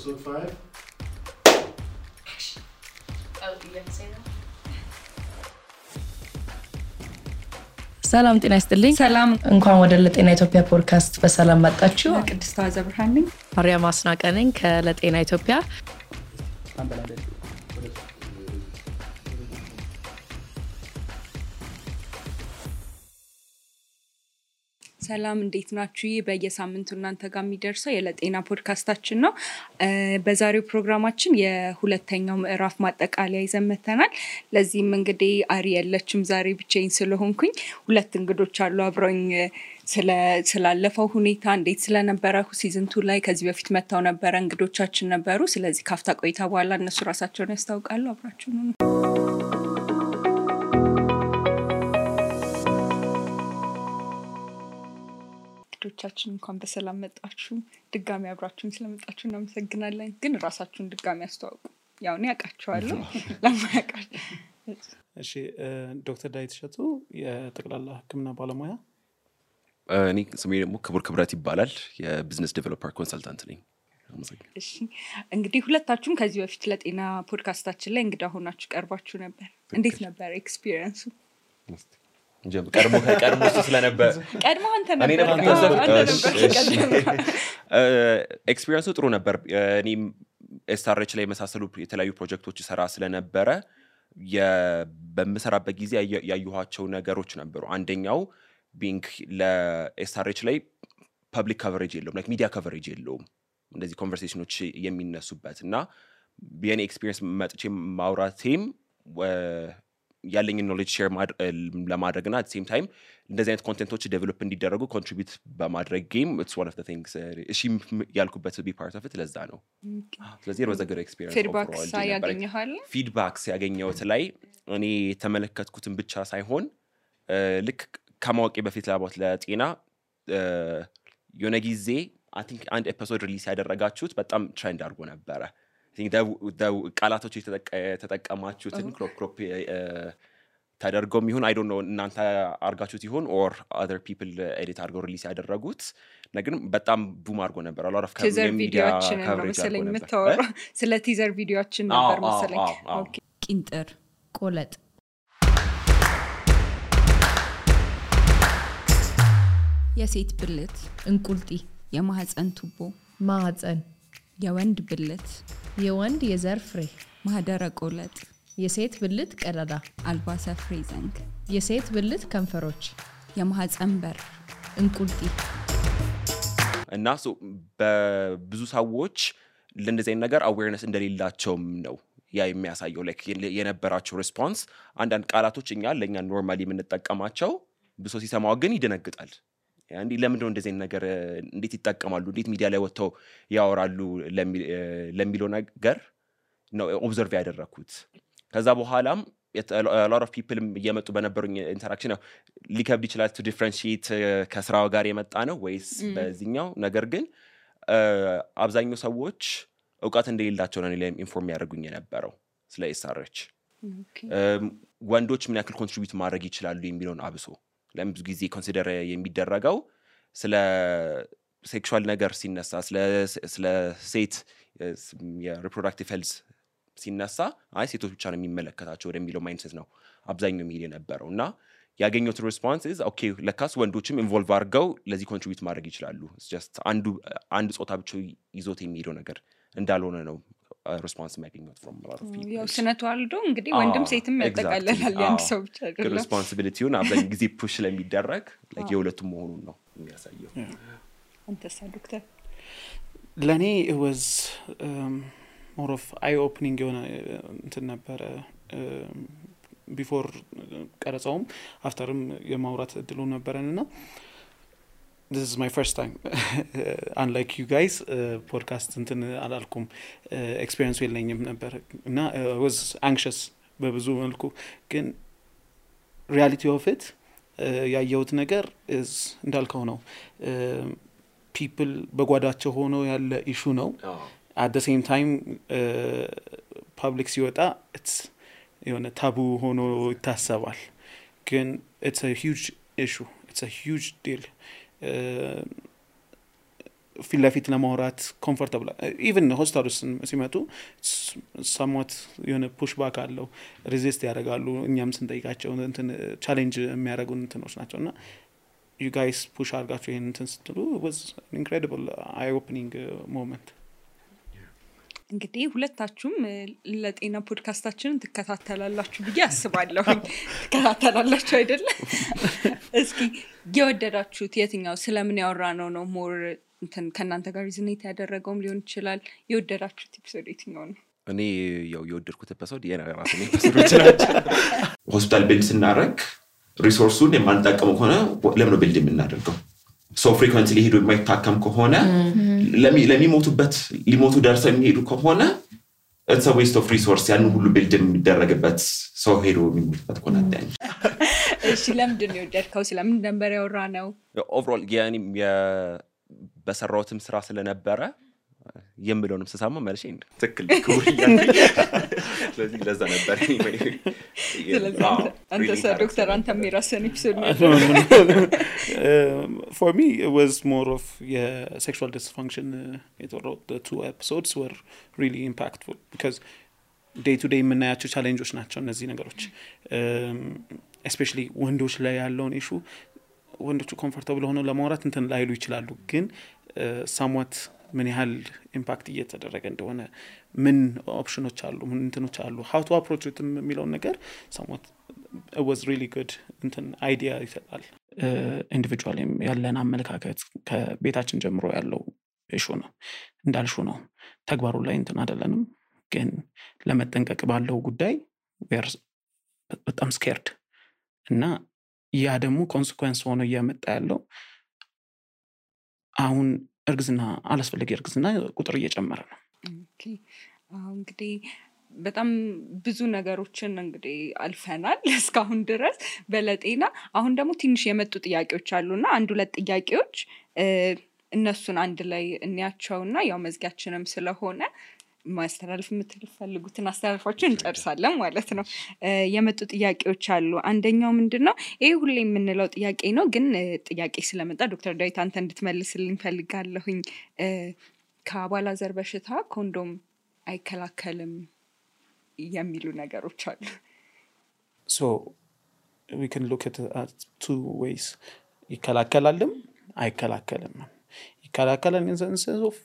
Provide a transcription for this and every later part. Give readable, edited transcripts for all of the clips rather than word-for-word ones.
Episode 5. Oh, you didn't say that? ሰላም ጤና ይስጥልኝ ሰላም እንኳን ወደ ለጤና ኢትዮጵያ ፖድካስት በሰላም መጣችሁ ቅድስት አዘብርሃን ማርያም አስናቀ ነኝ ከለጤና ኢትዮጵያ ሰላም እንዴት ናችሁ በየሳምንቱ እናንተ ጋር የሚደርሰው የለጤና ፖድካስታችን ነው በዛሬው ፕሮግራማችን የሁለተኛው ምዕራፍ ማጠቃለያ ይዘመተናል ለዚህም እንግዲህ አሪ ያለችም ዛሬ ብቻዬን ስለሆንኩኝ ሁለት እንግዶች አሉ አብረውኝ ስላለፈው ሁኔታ እንዴት ስለነበረ ሲዝን 2 ላይ ከዚህ በፊት መጣው ነበር እንግዶቻችን ነበሩ ስለዚህ ካፍታ ቆይታ በኋላ እነሱ ራሳቸውን ያስታውቃሉ አብራችሁ ነው ቻችን እንኳን በሰላም መጣችሁ ድጋሚ አብራችሁን ስለመጣችሁ እናመሰግናለን ግን ራሳችሁን ድጋሚ አስተዋውቁ ያው እኔ አቃቸዋለሁ ለማያቃች እሺ ዶክተር ዳዊት ሸቱ የጠቅላላ ህክምና ባለሙያ እኔ ስሜ ደግሞ ክብረት ይባላል የቢዝነስ ዴቨሎፐር ኮንሰልታንት ነኝ እሺ እንግዲህ ሁለታችሁም ከዚህ በፊት ለጤና ፖድካስታችን ላይ እንግዳ ሆናችሁ ቀርባችሁ ነበር እንዴት ነበር ኤክስፒሪየንሱ ቀድሞ ስለነበር ቀድሞ አንተ ነበር ኤክስፒሪየንሱ ጥሩ ነበር እኔም ኤስአርኤች ላይ መሳሰሉ የተለያዩ ፕሮጀክቶች ሰራ ስለነበረ በመሰራበት ጊዜ ያዩኋቸው ነገሮች ነበሩ አንደኛው ቢንክ ለኤስአርኤች ላይ ፐብሊክ ከቨሬጅ የለውም ላይክ ሚዲያ ከቨሬጅ የለውም እንደዚህ ኮንቨርሴሽኖች የሚነሱበትና የኔ ኤክስፒሪየንስ መጥቼ ማውራቴም ያለኝ ኖሌጅ ሼር ለማድረግና at the same time እንደዚህ አይነት ኮንቴንቶች ዴቨሎፕ እንዲደረጉ ኮንትሪቢዩት በማድረግ ጌም it's one of the things እሺ ያልኩበት be part of it ለዛ ነው ስለዚህ it was a good experience ፊድባክስ ያገኘሁት ላይ እኔ ተመለከትኩትን ብቻ ሳይሆን ልክ ከማወቄ በፊት ለጤና የሆነ ጊዜ I think አንድ ኤፒሶድ ሪሊዝ ያደረጋችሁት በጣም ትሬንድ አድርጎ ነበረ I think the ቃላቶች የተጠቀማችሁትን ክሮፕ ተደርጎም ይሁን I don't know እናንተ አርጋችሁት ይሁን or other people edit አድርገው ሪሊዝ ያደረጉት ነገር በጣም ቡም አድርጎ ነበር a lot of ሚዲያ coverage አድርጎ ነበር ስለ ቲዘር ቪዲዮአችን ነበር መሰለኝ ኦኬ ቂንጥር ቆለጥ የሴት ብልት እንቁልጢ የማህፀን ቱቦ ማህፀን የወንድ ብልት የወንድ የዘር ፍሬ ማህደረ ቆለጥ የሴት ብልት ቀዳዳ አልባሰ ፍሬ ዘንግ የሴት ብልት ከንፈሮች የማህፀን በር እንቁልጢ እና በብዙ ሰዎች ለእንደዚህ አይነት ነገር awareness እንደሌላቸውም ነው ያ የሚያሳየው ላይክ የነበራቸው ሪስፖንስ አንዳንድ ቃላቶች ለኛ ኖርማሊ የምንጠቀማቸው ብሶ ሲሰማው ግን ይደነግጣል አንዲ ለምን ነው እንደዚህ ነገር እንዴት ይጣቀማሉ እንዴት ሚዲያ ላይ ወጥተው ያወራሉ ለሚለው ነገር ነው ኦብዘርቭ ያደረኩት ከዛ በኋላም a lot of people እየመጡ በነበሩኝ ኢንተራክሽን ነው ሊከብድ ይችላል to differentiate ከስራው ጋር የመጣ ነው ወይስ በዚህኛው ነገር ግን አብዛኛው ሰዎች ዕውቀት እንደሌላቸው ነው ለኔ ኢንፎርም ያደርጉኝ የነበረው ስለ ኤስአርኤች ወንዶች ምን ያክል ኮንትሪቢዩት ማድረግ ይችላሉ የሚለውን አብሶ ለምዙ ጊዜ ኮንሲደር የሚደረገው ስለ ሴክሹዋል ነገር ሲነሳ ስለ ሴት የሪፕሮዳክቲቭ ሄልዝ ሲነሳ ሴቶች ብቻ ነው የሚመለከታቸው ወደሚለው ማይንድሴት ነው አብዛኛው ሚዲያ ነበረውና ያገኙት ሪስፖንስ is okay ለካስ ወንዶችም ኢንቮልቭ አድርገው ለዚህ ኮንትሪቢዩት ማድረግ ይችላሉ it's just አንድ ጾታ ብቻ ይዞት የሚሄደው ነገር እንዳልሆነ ነው ሪስፖንስ የሚያገኙት from a lot of people ያው ስነቷልዶ እንግዲህ ወንድም ሴትም ያጠቃልላል ያን ሰው ብቻ አይደለም ሪስፖንሲቢሊቲውን አብዛኛው ጊዜ ፑሽ ለሚደረግ like የሁለቱም መሆኑን ነው የሚያሳየው አንተሳ ዶክተር ለኔ it was more of eye opening የሆነ እንትን ነበር before ቀረጻውም afterም የማውራት እድሉ ነበርና this is my first time unlike you guys podcast እንትን አላልኩም experience የለኝም ነበር እና I was anxious በብዙ መልኩ ግን reality of it ያየሁት ነገር is እንዳልከው ነው people በጓዳቸው ሆኖ ያለ issue ነው at the same time public ሲወጣ it's የሆነ ታቡ ሆኖ ይታሰባል ግን it's a huge issue it's a huge deal ፊት ለፊት ለማውራት ኮምፎርታብል ኢቭን ሆስታሉስ ሲመጡ somewhat የሆነ ፑሽ ባክ አለው ሬዚስት ያደርጋሉ እኛም ስንጠይቃቸው እንትን ቻሌንጅ የሚያደርጉን እንትኖች ናቸውና you guys push አድርጋችሁ ይሄን እንትን ስትሉ was an incredible eye opening moment እንግዲህ ሁለታችሁም ለጤና ፖድካስታችንን ትከታተላላችሁ ብዬ አስባለሁ ትከታተላላችሁ አይደለ እስኪ የወደዳችሁት የትኛው ስለምን ያወራነው ነው ሞር እንትን ከናንተ ጋር ሪዝኔት ያደረገውም ሊሆን ይችላል የወደዳችሁት ኤፒሶድ የትኛው ነው እኔ ያው የወደድኩት ኤፒሶድ የራሴን ኤፒሶዶች ናቸው ሆስፒታል ቢልድ ስናደርግ ሪሶርሱን የማንጠቀመው ከሆነ ለምን ቢልድ የምናደርገው ሶ ፍሪኩዌንትሊ ሄዶ የማይታከም ከሆነ ለሚሞቱበት ሊሞቱ ደርሰው የሚሄዱ ከሆነ it's a waste of resource ያን ሁሉ ቢልድ የሚደረግበት ሰው ሄዶ የሚሞቱበት ከሆነ አዳኝ እሺ ለምንድን ነው የወደድከው ስለምን ነበር ያወራነው ኦቨርኦል ያኔ በሰራውትም ስራ ስለነበረ የምለውንም ተሳማ ማለት ነው ትክክል ኩሪያ ስለዚህ ለዛ ነበር አንተ ዶክተር አንተ የሚራሰን ኤፒሶድ ነው for me it was more of sexual dysfunction the two episodes were really impactful because day to day የምናያቸው ቻሌንጆች ናቸው እነዚህ ነገሮች especially ወንዶች ላይ ያለውን ኢሹ ወንዶቹ ኮምፎርታብል ሆነው ለማውራት እንትን ላይሉ ይችላሉ ግን somewhat ምን ያህል ኢምፓክት እየተደረገ እንደሆነ ምን ኦፕሽኖች አሉ ምን እንትኖች አሉ how to approach it የሚለው ነገር somewhat it was really good እንትን አይዲያ ይሰጣል ኢንዲቪጁዋሊ ያለን አመለካከት ከቤታችን ጀምሮ ያለው ኢሹ ነው እንዳልሹ ነው ተግባሩ ላይ እንትን አይደለንም ግን ለመጠንቀቅ ባለው ጉዳይ በጣም ስኬርድ እና ያ ደግሞ ኮንሲኩዌንስ ሆኖ እያመጣ ያለው አሁን እርግዝና አላስፈልግ እርግዝና ቁጥር እየጨመረ ነው ኦኬ እንግዲህ በጣም ብዙ ነገሮችን እንግዲህ አልፈናል እስካሁን ድረስ በለጤና አሁን ደግሞ ትንሽ የመጡ ጥያቄዎች አሉና አንድ ሁለት ጥያቄዎች እነሱን አንድ ላይ እንያቸውና ያው መዝጊያችንም ስለሆነ ማስተላለፍ የምትፈልጉትን አስተላልፋችሁ እንጨርሳለን ማለት ነው የመጡ ጥያቄዎች አሉ አንደኛው ምንድነው ይሄ ሁሌ የምንለው ጥያቄ ነው ግን ጥያቄ ስለመጣ ዶክተር ዳዊት አንተ እንድትመልስልኝ ፈልጋለሁኝ ከአባላዘር በሽታ ኮንዶም አይከላከልም የሚሉ ነገሮች አሉ so we can look at two ways ይከላከላልም አይከላከልም ይከላከላል in the sense of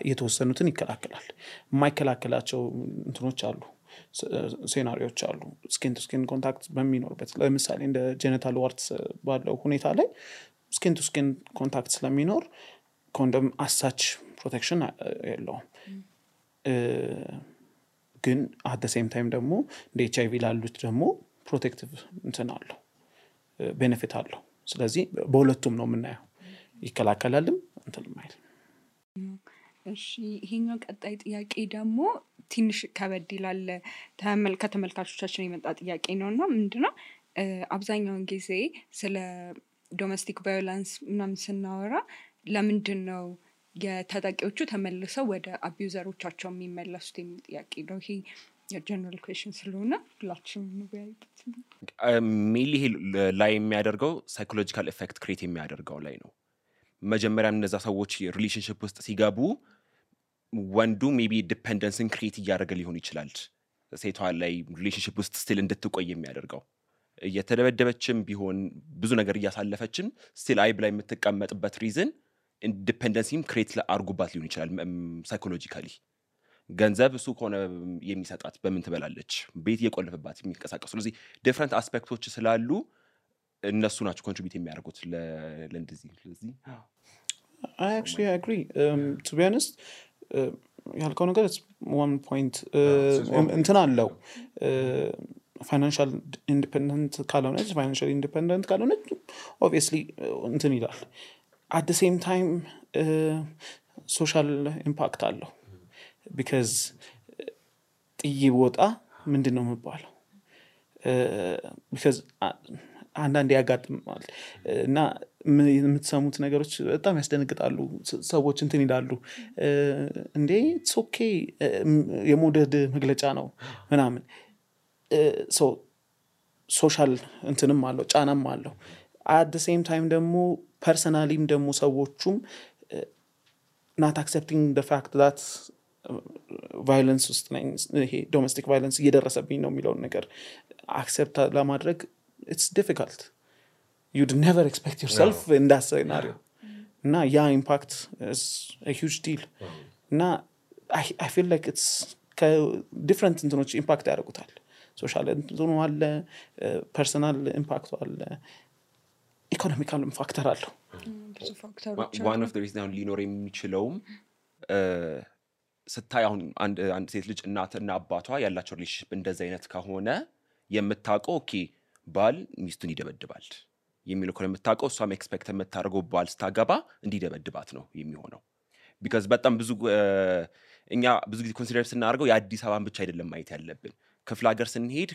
የተወሰኑትን ይከላከላል የማይከላከላቸው እንትኖች አሉ ሴናሪዮች አሉ ስኪን ቱ ስኪን ኮንታክት በሚኖርበት ለምሳሌ እንደ ጄኒታል ዋርትስ ባለው ሁኔታ ላይ ስኪን ቱ ስኪን ኮንታክት ስለሚኖር ኮንዶም አሳች ፕሮቴክሽን የለውም ግን at the same time ደግሞ እንደ HIV ላሉት ደግሞ ፕሮቴክቲቭ እንትን አለው ቤኔፊት አለው ስለዚህ በሁለቱም ነው የምናየው ይከላከላልም እንትን ማለት እሺ ይሄኛው ቀጣይ ጥያቄ ደግሞ ትንሽ ከበድ ይላል ከተመልካቾቻችን የመጣ ጥያቄ ነውና ምንድነው አብዛኛውን ጊዜ ስለ ዶሜስቲክ ቫዮለንስ ምናምን ስናወራ ለምንድነው የተጠቂዎቹ ተመልሰው ወደ አቢዩዘሮቻቸው የሚመለሱት የሚል ጥያቄ ነው ይሄ የጀነራል ኩዌስችን ስለሆነ ሁላችንም እንወያይበት ሜሊ ላይ የሚያደርገው ሳይኮሎጂካል ኢፌክት ክሬት የሚያደርገው ላይ ነው መጀመሪያም እነዛ ሰዎች ሪሌሽንሺፕ ውስጥ ሲገቡ ወንዱ ሜቢ ዲፔንደንስን ክሬት እያደረገ ሊሆን ይችላል ሴቷ ላይ ሪሌሽንሺፕ ውስጥ ስቲል እንድትቆይ የሚያደርገው እየተደበደበችም ቢሆን ብዙ ነገር እያሳለፈችም ስቲል አይብ ላይ የምትቀመጥበት ሪዝን ኢንዲፔንደንሲም ክሬት አድርጉባት ሊሆን ይችላል ሳይኮሎጂካሊ ገንዘብ እሱ ከሆነ የሚሰጣት በምን ትበላለች ቤት እየቆለፈባት የሚንቀሳቀሱ ስለዚህ ዲፍረንት አስፔክቶች ስላሉ እነሱ ናቸው ኮንትሪቢዩት የሚያደርጉት ለእንደዚህ ስለዚህ I actually agree to be honest ያልከው ነገር it's one point እንትን አለው financial independent ካልሆነች financially independent ካልሆነች obviously እንትን ይላል at the same time social impact አለው because ጥይወጣ ምንድነው የሚባለው because አንዳንዴ ያጋጥማል እና የምትሰሙት ነገሮች በጣም ያስደነግጣሉ ሰዎች እንትን ይላሉ እንዴ it's okay የሞደድ መግለጫ ነው ምናምን so social እንትንም አለው ጫናም አለው at the same time ደግሞ personally ደግሞ ሰዎቹም not accepting the fact that violence ውስጥ ነኝ ይሄ domestic violence እየደረሰብኝ ነው የሚለውን ነገር accept ለማድረግ it's difficult. You'd never expect yourself in that scenario. Na yeah, impact is a huge deal. Na I feel like it's different እንትኖች impact ያደርጉታል. social እንትኑ አለ personal impact አለ economical factor አለው ብዙ ፋክተሮች one of the reasons አሁን ሊኖር የሚችለውም ስታይ አሁን አንድ ሴት ልጅ እናትና አባቷ ያላቸው ሪሌሽንሺፕ እንደዛ አይነት ከሆነ የምታውቀው ኦኬ ባል ሚስቱን ይደበድባል የሚለው ከሆነ የምታውቀው እሷም ኤክስፔክት የምታደርገው ባል ስታገባ እንዲደበድባት ነው የሚሆነው because በጣም ብዙ እኛ ብዙ ጊዜ ኮንሲደር ስናደርገው የአዲስ አበባን ብቻ አይደለም ማየት ያለብን ክፍለ ሀገር ስንሄድ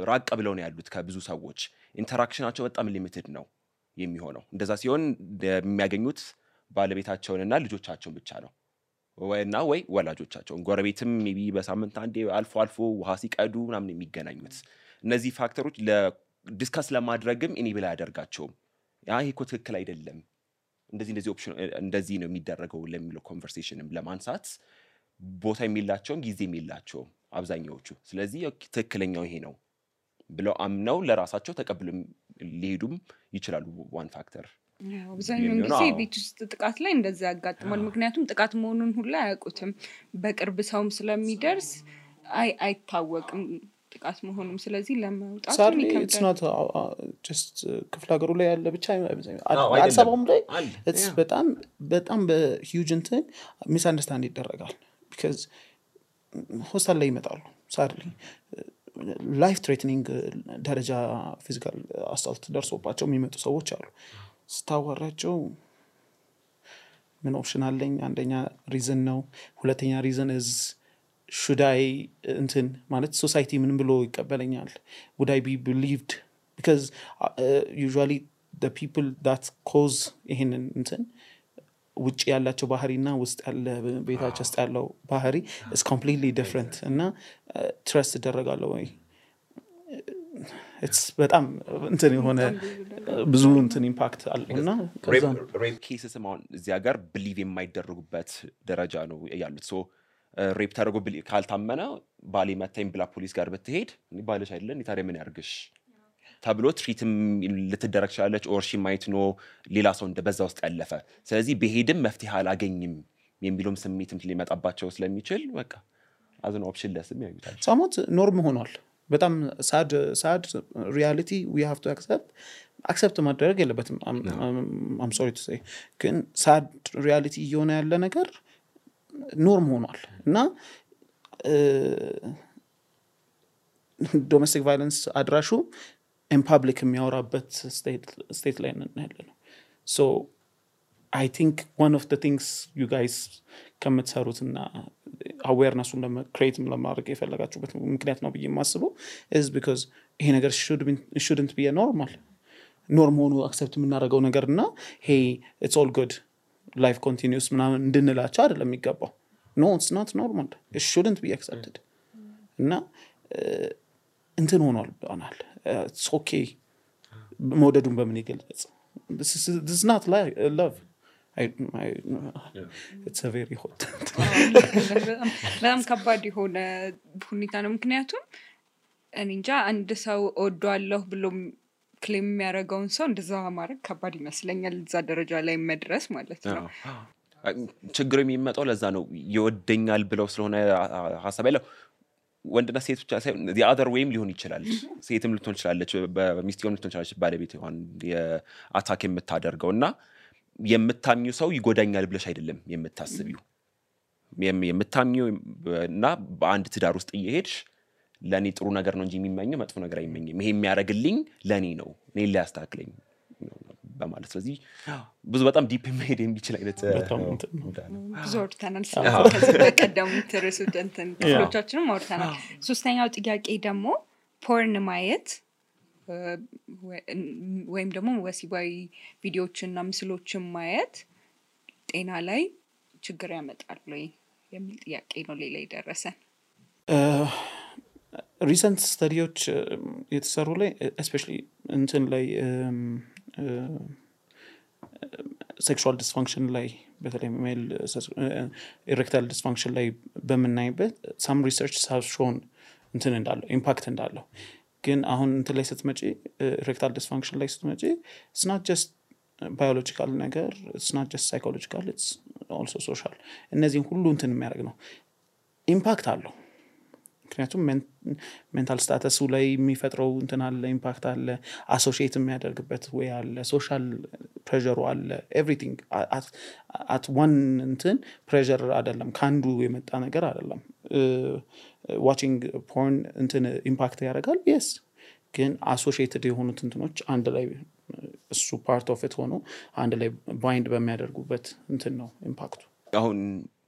ራቅ ብለው ነው ያሉት ከብዙ ሰዎች ኢንተራክሽናቸው በጣም ሊሚትድ ነው የሚሆነው እንደዛ ሲሆን የሚያገኙት ባለቤታቸውንና ልጆቻቸውን ብቻ ነው ወይ ወላጆቻቸውን ጎረቤትም ሜቢ በሳምንት አንዴ አልፎ ውሃ ሲቀዱ ምናምን የሚገናኙት እነዚህ ፋክተሮች ለዲስከስ ለማድረግም ኢኔብል ያደርጋቸውም ያ ይሄ እኮ ትክክል አይደለም እንደዚህ ኦፕሽን እንደዚህ ነው የሚደረገው ለሚለው ኮንቨርሴሽንም ለማንሳት ቦታ የሚላቸውም ጊዜ የሚላቸውም አብዛኛዎቹ ስለዚህ ትክክለኛው ይሄ ነው ብለው አምነው ለራሳቸው ተቀብለው ሊሄዱም ይችላሉ ዋን ፋክተር አብዛኛውን ጊዜ ቤት ውስጥ ጥቃት ላይ እንደዛ ያጋጥማል ምክንያቱም ጥቃት መሆኑን ሁሉ አያውቁትም በቅርብ ሰውም ስለሚደርስ አይታወቅም ጥቃት መሆኑም ስለዚህ ለማውጣት it's not just ክፍለ ሀገሩ ላይ ያለ ብቻ አዲስ አበባም ላይ it's በጣም በሂውጅ እንትን ሚስአንደርስታንድ ይደረጋል because ሆስታል ላይ ይመጣሉ sadly life threatening ደረጃ ፊዚካል አሳልት ደርሶባቸው የሚመጡ ሰዎች አሉ ስታወራቸው ምን ኦፕሽን አለኝ አንደኛ ሪዝን ነው ሁለተኛ ሪዝን is should I እንትን ማለት society ምን ብሎ ይቀበለኛል would I be believed because usually the people that cause ይሄንን እንትን ውጪ ያላቸው ባህሪና ውስጥ ያለ ቤታቸው ውስጥ ያለው ባህሪ is completely different እና trust ይደረጋለው ወይ it's በጣም እንትን የሆነ ብዙ እንትን ኢምፓክት አለውና ሬፕ ኬስስ ማን እዚህ ሀገር ቢሊቭ የማይደረጉበት ደረጃ ነው ያሉት ሶ ሬፕ ታደርጎ ካልታመነ ባሊ መታኝ ብላ ፖሊስ ጋር ብትሄድ ባለሽ አይደለም ታዲያ ምን ያርግሽ ተብሎ ትሪትም ልትደረግ ይችላልች ኦር ሺ ማይት ኖ ሌላ ሰው እንደበዛ ውስጥ ያለፈ ስለዚህ በሄድም መፍትሄ አላገኝም የሚሉም ስሜትም ሊመጣባቸው ስለሚችል በቃ አዝን ኦፕሽን ለስም ያዩታል ሳሞት ኖርም ሆኗል በጣም sad reality we have to accept ማድረግ የለበትም I'm sorry to say ግን sad reality እየሆነ ያለ ነገር ኖርም ሆኗል እና domestic violence አድራሹ in public የሚያወራበት state ላይ ነን ያለነው so I think one of the things you guys ከምትሰሩትና awareness-ን create ለማድረግ የፈለጋችሁበት ምክንያት ነው ብዬ የማስበው is because ይሄ ነገር shouldn't be a norm ሆኖ accept የምናደርገው ነገርና hey it's all good life continues ምናምን እንድንላቸው አይደለም የሚገባው no it's not normal it shouldn't be accepted እና እንትን ሆኗል ባናል it's okay መውደዱን በምን ይገልጽ this is not love it's a very hot በጣም ከባድ የሆነ ሁኔታ ነው ምክንያቱም እንጃ አንድ ሰው ወዷለሁ ብሎ ክሌም የሚያደርገውን ሰው እንደዛ ማድረግ ከባድ ይመስለኛል እዛ ደረጃ ላይ መድረስ ማለት ነው ችግሩ የሚመጣው ለዛ ነው ይወደኛል ብለው ስለሆነ ሐሳብ ያለው ወንድና ሴት ብቻ ሳይሆን the other wayም ሊሆን ይችላል ሴትም ልትሆን ይችላልች በሚስቲውም ልትሆን ይችላልች ባለቤት ይሆን የአታክ የምታደርገውና የምታምኙ ሰው ይጎዳኛል ብለሽ አይደለም የምታስቢው የምታምኚው እና በአንድ ትዳር ውስጥ እየሄድሽ ለኔ ጥሩ ነገር ነው እንጂ የሚመኘው መጥፎ ነገር አይመኝም ይሄ የሚያረግልኝ ለኔ ነው እኔ ሊያስተካክለኝ በማለት ስለዚህ ብዙ በጣም ዲፕ መሄድ የሚችል አይነት ብዙ ወርተናል ስለዚህ በቀደም ተረሱደንተን ክፍሎቻችንም ወርተናል ሶስተኛው ጥያቄ ደግሞ ፖርን ማየት ወይም ደግሞ ወሲባዊ ቪዲዮዎችና ምስሎችን ማየት ጤና ላይ ችግር ያመጣል ወይ የሚል ጥያቄ ነው ሌላ ይደረሰን recent studies የተሰሩ ላይ especially እንትን ላይ sexual dysfunction ላይ በተለይ ሜል ኢሬክታይል ዲስፋንክሽን ላይ በምናይበት some research have shown እንትን እንዳለው ኢምፓክት እንዳለው ግን አሁን እንትን ላይ ስትመጪ ኢሬክታይል ዲስፋንክሽን ላይ ስትመጪ it's not just biological ነገር it's not just psychological it's also social እነዚህን ሁሉ እንትን የሚያደርግ ነው ኢምፓክት አለው ምክንያቱም ሜንታል ስታተሱ ላይ የሚፈጥረው እንትን አለ ኢምፓክት አለ አሶሺየት የሚያደርግበት ወይ አለ ሶሻል ፕሬሸሩ አለ ኤቭሪቲንግ at one እንትን ፕሬሸር አይደለም ካንዱ የመጣ ነገር አይደለም ዋቺንግ ፖርን እንትን ኢምፓክት ያደርጋል yes ግን አሶሺየትድ የሆኑት እንትኖች አንድ ላይ እሱ ፓርት ኦፍ ኢት ሆኖ አንድ ላይ ባይንድ በሚያደርጉበት እንትን ነው ኢምፓክቱ አሁን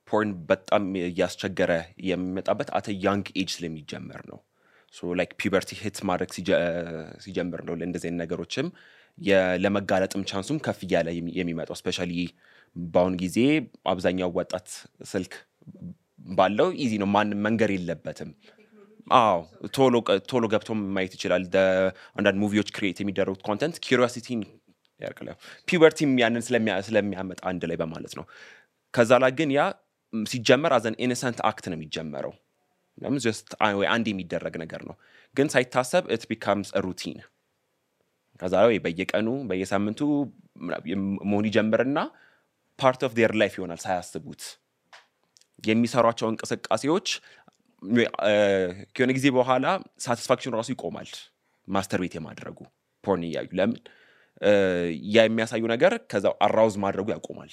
ፖርን በጣም ያስቸገረ የሚመጣበት አተ ያንግ ኤጅ ስለሚጀምር ነው ሶ ላይክ ፒበርቲ ሂት ማድረግ ሲጀምር ነው ለእንደዚህ ነገሮችም ለመጋለጥም ቻንሱም ከፍ ያለ የሚመጣው ስፔሻሊ ባውን ጊዜ አብዛኛው ወጣት ስልክ ባለው ኢዚ ነው ማንም መንገር የለበትም ቶሎ ገብቶ ማየት ይችላል አንዳንድ ሙቪዎች ክሬት የሚደረጉት ኮንተንት ኪዩሪዮሲቲን ያርቀላል ፒበርቲም ያንን ስለሚያመጣ አንድ ላይ በማለት ነው ከዛ ላይ ግን ያ ሲጀመር as an innocent act ነው የሚጀመረው ለምን just አንድ የሚደረግ ነገር ነው ግን ሳይታሰብ it becomes a routine ከዛ ላይ በየቀኑ በየሳምንቱ መሆን ይጀምርና part of their life ይሆናል ሳያስቡት የሚሰሯቸው እንቅስቃሴዎች ከሆነ ጊዜ በኋላ ሳቲስፋክሽን ራሱ ይቆማል ማስተርቤት የማድረጉ ፖርን ያዩ ለምን ያ የሚያሳዩ ነገር ከዛው አራውዝ ማድረጉ ያቆማል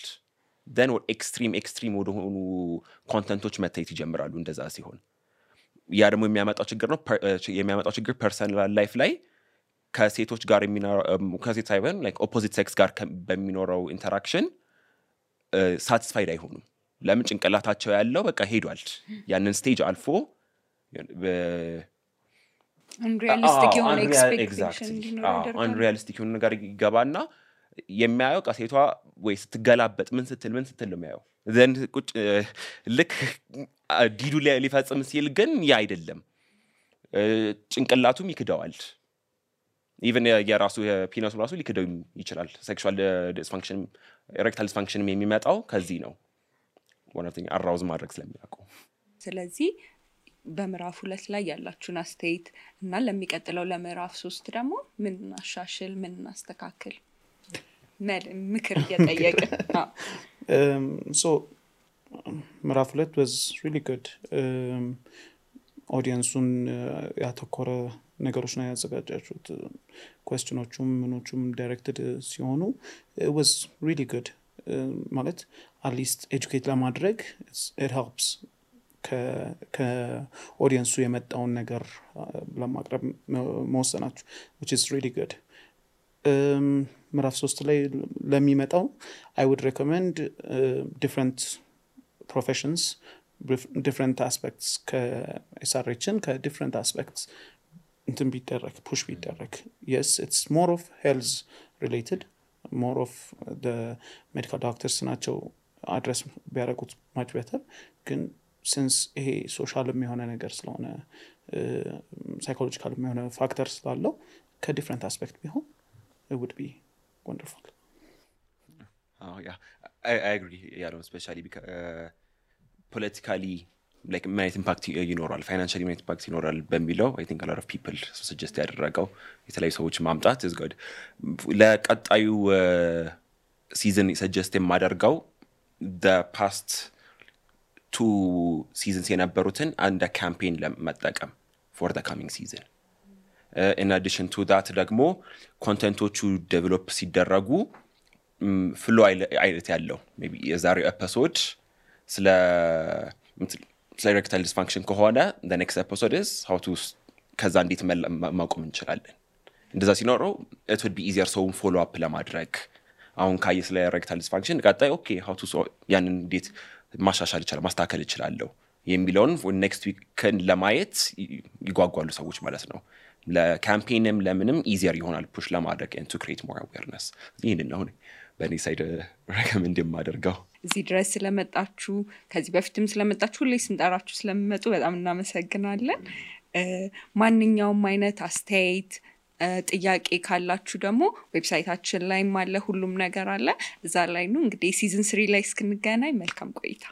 then what extreme ወደ ሆኑ ኮንተንቶች መታየት ይጀምራሉ እንደዛ ሲሆን ያ ደግሞ የሚያመጣው ችግር ፐርሰናል ላይፍ ላይ ከሴቶች ጋር ከሴት ሳይሆን like opposite sex ጋር በሚኖረው ኢንተራክሽን ሳቲስፋይድ አይሆኑም ለምን ጭንቅላታቸው ያለው በቃ ሄዷል ያንን ስቴጅ አልፎ unrealistic የሆነ expectation unrealistic የሆነ ነገር ይገባና የሚያየው ቃሴቷ ወይ ስትገላበጥ ምን ስትል ነው የሚያየው then ቁጭ ልክ ዲዱ ሊፈጽም ሲል ግን ያ አይደለም ጭንቅላቱም ይክደዋል even የራሱ የፒነሱ ራሱ ሊክደው ይችላል sexual dysfunction erectile dysfunction የሚመጣው ከዚህ ነው one of the arouse ማድረግ ስለሚያውቁ ስለዚህ በምዕራፍ 2 ላይ ያላችሁን አስተያየት እና ለሚቀጥለው ለምዕራፍ 3 ደግሞ ምን እናሻሽል ምን እናስተካክል ምክር እየጠየቀ so ምዕራፍ 2 was really good audience-ን ያተኮረ ነገሮች ነው ያዘጋጃችሁት questionዎቹም ምኖቹም directed ሲሆኑ it was really good ማለት at least educate ለማድረግ it helps ከኦዲየንሱ የመጣውን ነገር ለማቅረብ መወሰናችሁ which is really good ምዕራፍ 3 ላይ ለሚመጣው I would recommend different professions different aspects ከSRHን ከdifferent aspects እንትን ቢደረግ push ቢደረግ yes it's more of health related more of the medical doctors ናቸው address ቢያደርጉት much better ግን since ይሄ ሶሻልም የሆነ ነገር ስለሆነ ሳይኮሎጂካልም የሆነ ፋክተር ስላለው ከዲፈረንት አስፔክት ቢሆን it would be wonderful yeah I agree yeah especially because politically like many impact ይኖራል financially many impact ይኖራል በሚለው I think a lot of people suggest ያደረገው የተለያዩ ሰዎች ማምጣት is good ለቀጣዩ season suggest የማደርገው the past 2 seasons የነበሩትን አንድ ካምፔን ለመጠቀም for the coming season in addition to that ደግሞ ኮንቴንቶቹ ዴቨሎፕ ሲደረጉ ፍሎ አይነት ያለው maybe የዛሬው ኤፒሶድ ስለ erectile dysfunction ከሆነ the next episode is how to ከዛ እንዴት ማቆም እንችላለን እንደዛ ሲኖረው it would be easier so follow up ለማድረግ አሁን ካየ ስለ erectile dysfunction ቀጣይ okay how to ያንን እንዴት ማሻሻል ይችላል ማስተካከል ይችላልው የሚለውን next week ለማየት ይጓጓሉ ሰዎች ማለት ነው ለካምፔንም ለምንም easier ይሆናል push ለማድረግ and to create more awareness ይሄንን ነው በእኔ ሳይድ recommend የማደርገው እዚህ ድረስ ስለመጣችሁ ከዚህ በፊትም ስለመጣችሁ ሁሌ ስንጠራችሁ ስለምመጡ በጣም እናመሰግናለን ማንኛውም አይነት አስተያየት ጥያቄ ካላችሁ ደግሞ ዌብሳይታችን ላይም አለ ሁሉም ነገር አለ እዛ ላይ ነው እንግዲህ ሲዝን 3 ላይ እስክንገናኝ መልካም ቆይታ